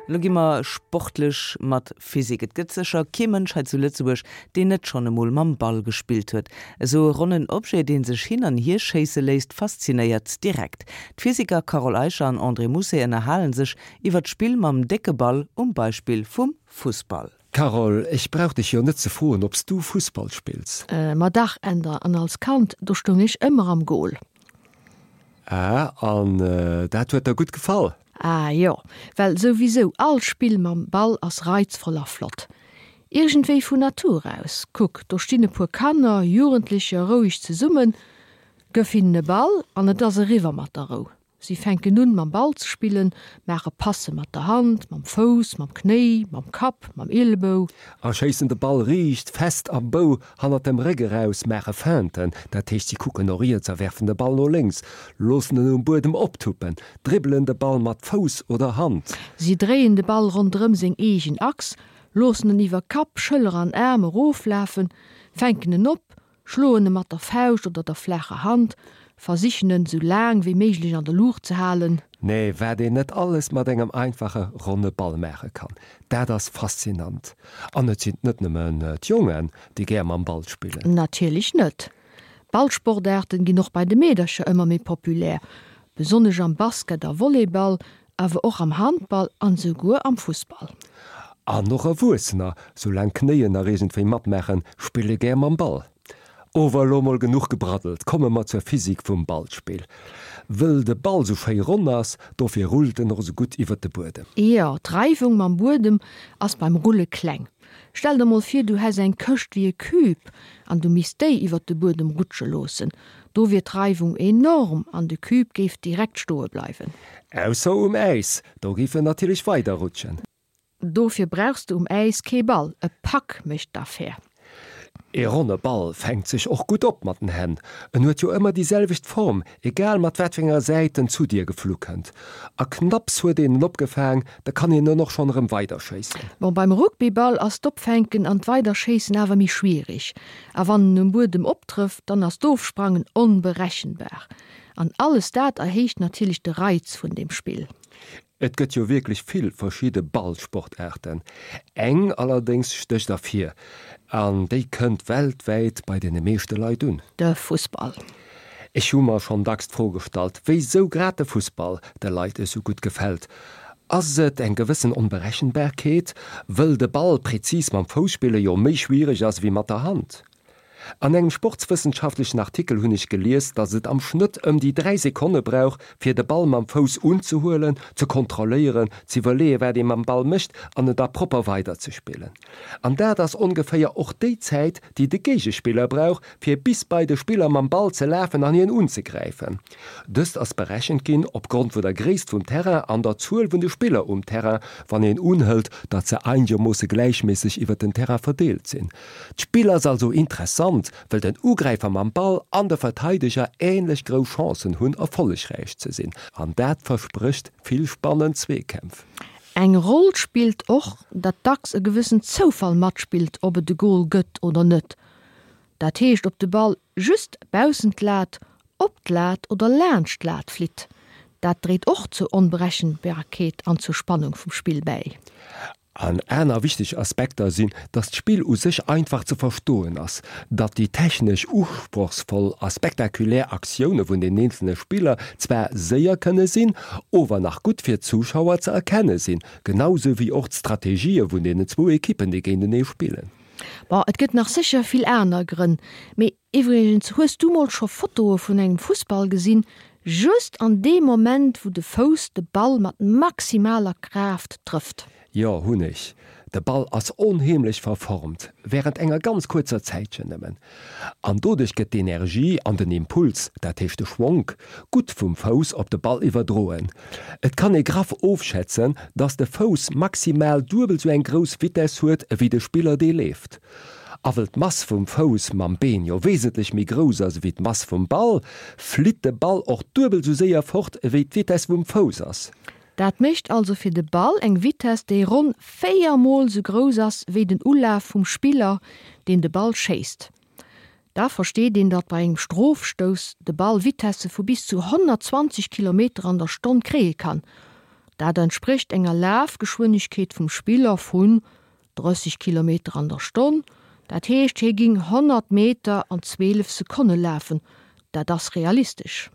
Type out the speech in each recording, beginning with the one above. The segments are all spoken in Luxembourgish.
Elo gi mer sportlech mat Physik. Et gëtt sécher kee Mënsch hei zu Lëtzebuerg, deen net schonn emol mam Ball gespillt huet. Esou e ronnen Objet, dee sech hin an hier schéisse léisst, faszinéiert direkt. D'Physiker Carole Eicher an André Mousset ënnerhalen sech iwwer d'Spill mam décke Ball um Beispill vum Fussball. Carole, ech brauch dech jo net ze froen, ob s du Fussball spills. Ma dach, Änder, an als Kand, do stoung ech ëmmer am Goal. Ah, an dat huet der gutt gefall? Ah jo, well souwisou all Spill mam Ball ass reizvoll a flott. Iergendwéi vun Natur aus. Kuck, do stinn e puer Kanner, Jugendlecher roueg zesummen, gëff hinnen e Ball an et ass eriwwer mat der Rou. Si fänken un mam Ball ze spillen, maache Passe mat der Hand, mam Fouss, mam Knéi, mam Kapp, mam Ielebou. A schéissen de Ball riicht, fest am Bou hannert dem Réck eraus, maache Feinten, dat heescht si kucken no riets a werfen de Ball no lénks, loossen en um Buedem optuppen, dribbelen de Ball mat Fouss oder Hand. Si dréien de Ball ronderëm seng eegen Achs, loossen en iwwer Kapp, Schëller an Aarm eroflafen, fänken en op, schloen e mat der Fauscht oder der flaacher Hand, versichen en sou laang wéi méiglech an der Luucht ze halen. Nee, wat een net alles mat engem einfache ronne Ball maache kann, dat ass faszinant. An et sinn net nëmmen d'Jongen, déi gär mam Ball spillen. Natierlech net. Ballsportaarten ginn och bei de Meedercher ëmmer méi populär, besonnesch am Basket a Volleyball, awer och am Handball an esouguer am Fussball. An och Erwuessener, soulaang d'Knéien nach iergendwéi matmaachen, spille gär mam Ball. Ower elo mol genuch gebraddelt, komme mer zur Physik vum Ballspill. Wëll de Ball sou schéi ronn ass, dofir rullt en och sou gutt iwwert de Buedem. Jo, d'Reiwung mam Buedem ass beim Rulle kleng. Stell der mol vir, du häss eng Këscht wéi e Cube an du misst déi iwwert de Buedem rutsche loossen. Do wier d'Reiwung enorm an de Cube géif direkt stoe bleiwen. Ausser um Äis, do géif en natierlech weider rutschen. Dofir brauchs de um Äis kee Ball, e Puck mécht d'Affär. E ronne Ball fänkt sech och gutt op mat den Hänn. En huet jo ëmmer déi selwecht Form, egal mat wat fir enger Säit en zu dir geflu kënnt. A knapps huet een en opgefaang, da kann een en och schonn erëm weiderschéissen. Bon, beim Rugbyball ass d'Opfänken an d'Weiderschéissen awer méi schwierig. A wann en um Buedem optrëfft, dann ass d'Ofsprangen onberechenbar. An alles dat erhéicht natierlech de Reiz vun dem Spill. Et gëtt jo wierklech vill verschidde Ballsportaarten. Eng allerdéngs stécht ervir, an déi kënnt weltwäit bei deene meeschte Leit un. De Fussball. Ech hu mer schonn dacks d'Fro gestallt, wéisou grad de Fussball de Leit esou gutt gefält. Ass et eng gewëssen Onberechenbarkeet, wëll de Ball prezis mam Fouss spille jo méi schwiereg ass ewéi mat der Hand? An engem sportswëssenschaftlechen Artikel hunn ech gelies, datt et am Schnëtt ëm déi 3 Sekonne brauch, fir de Ball mam Fouss unzehuelen, ze kontrolléieren, ze iwwerleeën, wat ee mam Ball mécht an en da propper weiderzespillen. An dat ass ongeféier och déi Zäit, déi de Géigespiller brauch, fir bis bei de Spiller mam Ball ze lafen an hien unzegräifen. Dëst ass berechent ginn opgrond vun der Gréisst vum Terrain an der Zuel vun de Spiller um Terrain, wann een unhëlt, datt se einegermoosse gläichméisseg iwwer den Terrain verdeelt sinn. D'Spill ass also interessant, wëll den Ugräifer mam Ball an de Verteideger änlech grouss Chancen hunn, erfollegräich ze sinn. An dat versprécht vill spannend Zweekämpf. Eng Roll spillt och, datt dacks e gewëssen Zoufall matspillt, ob et e Gol gëtt oder net. Dat heescht, ob de Ball just baussent d'Lat, op d'Lat oder laanscht d'Lat flitt. Dat dréit och zur Onberechenbarkeet an zur Spannung vum Spill bäi. An aner wichteg Aspekter sinn, datt d'Spill u sech einfach ze verstoen ass, datt déi technesch usprochsvoll a spektakulär Aktioune vun den eenzelne Spiller zwar séier kënne sinn, ower nach gutt fir d'Zuschauer ze erkenne sinn, genau sou wéi och d'Strategië vun deenen zwou Ekippen, déi géintenee spillen. Bon, et gëtt nach sécher vill aner Grënn, mee Iwwregens, hues du mol scho Fotoe vun engem Fussball gesinn, just an deem Moment wou de Fouss de Ball mat maximaler Kraaft trëfft? Jo, hunn ech. De Ball ass onheemlech verformt, wärend enger ganz kuerzer Zäitchen nëmmen. An doduerch gëtt d'Energie an den Impuls, dat heescht de Schwonk, gutt vum Fouss op de Ball iwwerdroen. Et kann ee graff ofschätzen, dass de Fouss maximal duebel sou eng grouss Vitess huet ewéi de Spiller dee leeft. A wëll d'Mass vum Fouss mam Been jo wesentlech méi grouss ass ewéi d'Mass vum Ball, flitt de Ball och duebel sou séier fort ewéi d'Vitess vum Fouss ass. Dat mécht also fir de Ball eng Vitess déi ronn 4 mol sou grouss ass wéi den Ulaf vum Spiller deen de Ball schéisst. Da versteet een datt bei engem Strofstouss de Ball Vitesse vu bis zu 120 Kilometer an der Stonn kréie kann. Dat entsprécht enger Lafgeschwindegkeet vum Spiller vun 30 Kilometer an der Stonn. Dat heescht, hie ging 100 Meter an 12 Sekonne lafen. Dat ass realistesch.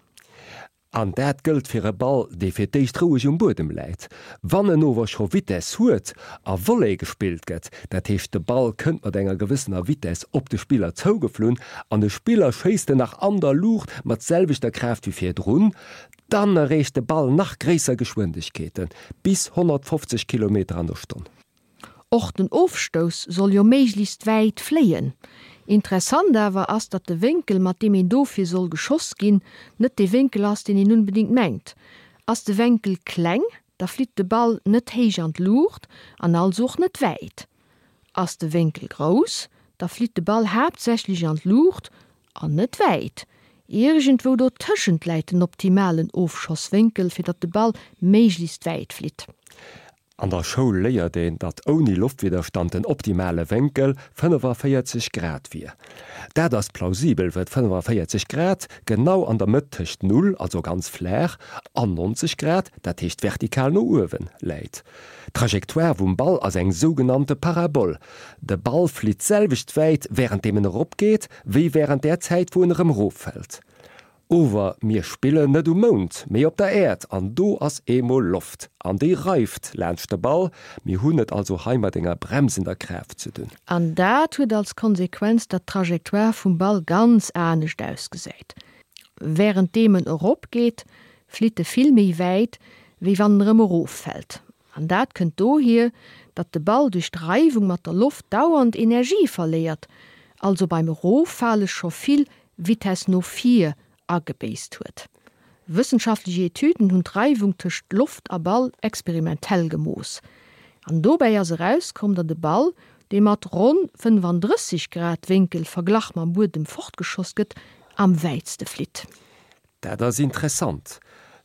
An dat gëllt fir e Ball, dee fir d'éischt roueg um Buedem läit. Wann en ower scho Vitess huet a Volley gespillt gëtt, dat heescht de Ball kënnt mat enger gewëssener Vitess op de Spiller zougeflunn an de Spiller schéisst en nach an der Luucht mat selwechter Kraaft wéi virdrun, dann erreecht de Ball nach gréisser Geschwindegkeeten, bis 150 Kilometer an der Stonn. Och den Ofstouss soll jo méiglechst wäit fléien. Interessant awer ass, datt de Wénkel, mat deem een dofir soll geschoss ginn, net dee Wénkel ass, deen een unbedingt mengt. Ass de Wenkel kleng, da flitt de Ball net héich an d'Luucht an also och net wäit. Ass de Wénkel grouss, da flitt de Ball haaptsächlech an d'Luucht an net wäit. Iergendwou dotëschent läit den optimalen Ofschosswénkel, fir datt de Ball méiglechst wäit flitt. An der Schoul léiert een, datt ouni Loftwidderstand den optimale Wénkel 45 Grad wier. Dat ass plausibel, wëll 45 Grad genau an der Mëtt tëscht Null, also ganz flaach, an 90 Grad, dat heescht vertikal no uewen, läit. D'Trajectoire vum Ball ass eng sougenannte Parabol. De Ball flitt d'selwecht wäit wärenddeem en eropgeet, wéi wärend där Zäit wou en erëm eroffält. Ower mir spillen net um Mound, mee op der Äerd, an do ass eemol Loft, an déi reift laanscht de Ball. Mir hunn et also hei mat enger bremsender Kraaft ze dunn. An dat huet als Konsequenz, datt d'Trajectoire vum Ball ganz anescht ausgesäit. Wärenddeem en eropgeet, flitt e vill méi wäit, wéi wann en erëm eroffält. An dat kënnt dohier, datt de Ball duerch d'Reiwung mat der Loft dauernd Energie verléiert, also beim Eroffale scho vill Vitess no vir agebéisst huet. Wëssenschaftlech Etüden hunn d'Reiwung tëscht Loft a Ball experimentell gemooss. An dobäi ass erauskomm, datt e Ball, dee mat ronn 35 Grad Wénkel verglach mam Buedem fortgeschoss gëtt, am wäitste flitt. Dat ass interessant.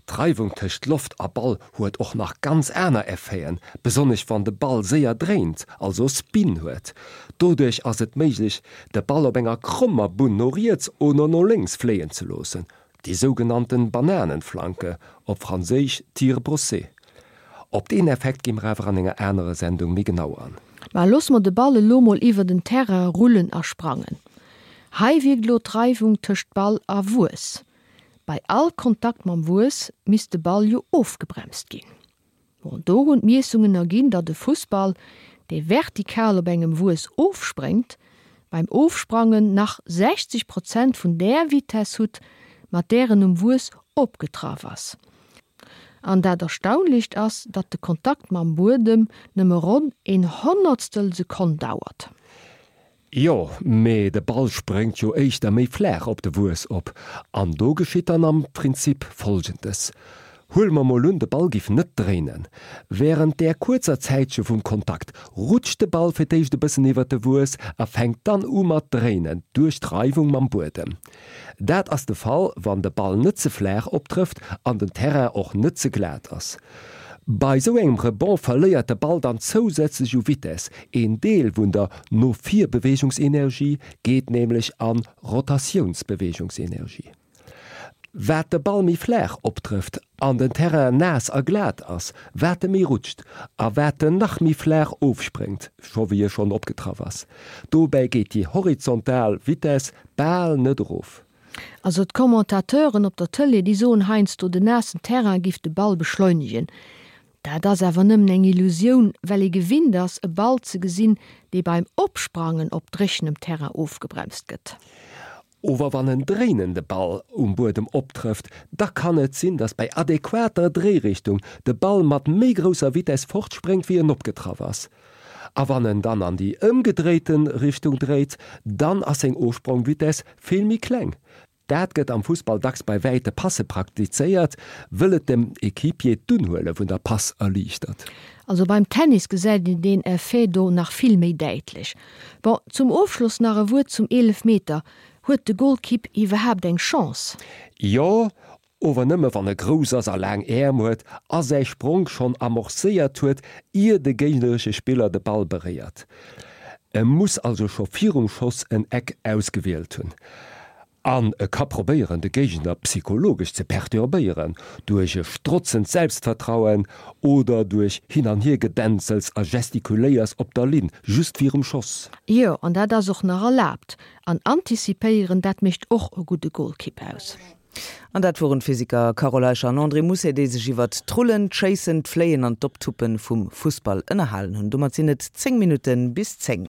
D'Reiwung tëscht Loft a Ball huet och nach ganz aner Effeten, besonnesch wann de Ball séier dréint, also Spin huet. Doduerch ass et méiglech, de Ball op enger krommer Bunn no riets oder no lénks fléien ze loossen, déi sougenannten Bananenflanke, op franséisch tir brossé. Op deen Effekt gi mer awer an enger anerer Sendung méi genau an. Mä loosse mer de Ball elo mol iwwer den Terrain rullen a sprangen. Hei wierkt elo d'Reiwung tëscht Ball a Wuess. Bei all Kontakt mam Wuess misst de Ball jo ofgebremst ginn. Bon, do hunn d'Miessungen erginn, datt e Fussball, dee vertikal op engem Wuess ofspréngt, beim Ofsprangen nach 60 Prozent vun där Vitess hutt, mat där en um Wuess opgetraff ass. An dat Erstaunlecht ass, datt de Kontakt mam Buedem nëmme ronn een Honnertstel Sekonn dauert. Jo, mee de Ball spréngt jo éischter méi flaach op de Wuess op. An do geschitt dann am Prinzip Folgendes, Huele mer mol un, de Ball giff net dréinen. Wärend där kuerzer Zäitche vum Kontakt rutscht de Ball fir d'éischt e bëssen iwwert de Wuess a fänkt dann u mat dréinen duerch d'Reiwung mam Buedem. Dat ass de Fall, wann de Ball net ze flaach optrëfft an den Terrain och net ze glat ass. Bei sou engem Rebond verléiert de Ball dann zousätzlech u Vitess, een Deel vun der No-vir-Beweegungsenergie geet nämlech an Rotatiounsbeweegungsenergie. Wat de Ball méi flaach optrëfft an den Terrain naass a glat ass, wat e méi rutscht a wat en nach méi flaach ofspréngt, scho wéi e schonn opgetraff ass. Dobäi geet déi horizontal Vitess bal net erof. Also d'Commentateuren op der Tëlee, déi soen heiansdo, den naassen Terrain giff de Ball beschleunegen. Dat ass awer nëmmen eng Illusioun, well ee gewinnt ass, e Ball ze gesinn, dee beim Opsprangen op dréchenem Terrain ofgebremst gëtt. Ower wann en dréinende Ball um Buedem optrëfft, da kann et sinn, datt bei adequater Dréirichtung de Ball mat méi grousser Vitess fortspréngt, wéi en opgetraff ass. A wann en dann an déi ëmgedréite Richtung dréit, dann ass seng Ofsprongvitess vill méi kleng. Dat gëtt am Fussball dacks bei wäite Passe praktizéiert, wëll et dem Equipier d'Unhuele vun der Pass erliichtert. Also beim Tennis gesäit een deen Effet do nach vill méi däitlech. Bon, zum Ofschloss nach e Wuert zum Eelefmeter, Huet de Golkipp iwwerhaapt eng Chance? Jo, ower nëmme wann e grouss ass a laang Äerm huet a säi Spronk schonn amorcéiert huet, ier de géigneresche Spiller de Ball beréiert. E muss also scho virum Schoss en Eck ausgewielt hunn. An e ka probéieren, de Géigner psychologesch ze perturbéieren, duerch e strotzend Selbstvertrauen oder duerch Hin an Hiergedänzels a Gestikuléiers op der Linn, just virum Schoss. Jo, an dat ass och nach erlaabt. An antizipéieren, dat mécht och e gudde Golkipp aus. An dat woren d'Physiker Carole Eicher an André Mousset, déi sech iwwert d'Rullen, d'Schéissen, d'Fléien an d'Optuppe vum Fussball ënnerhalen hunn. Domat sinn et 10 Minutte bis 10.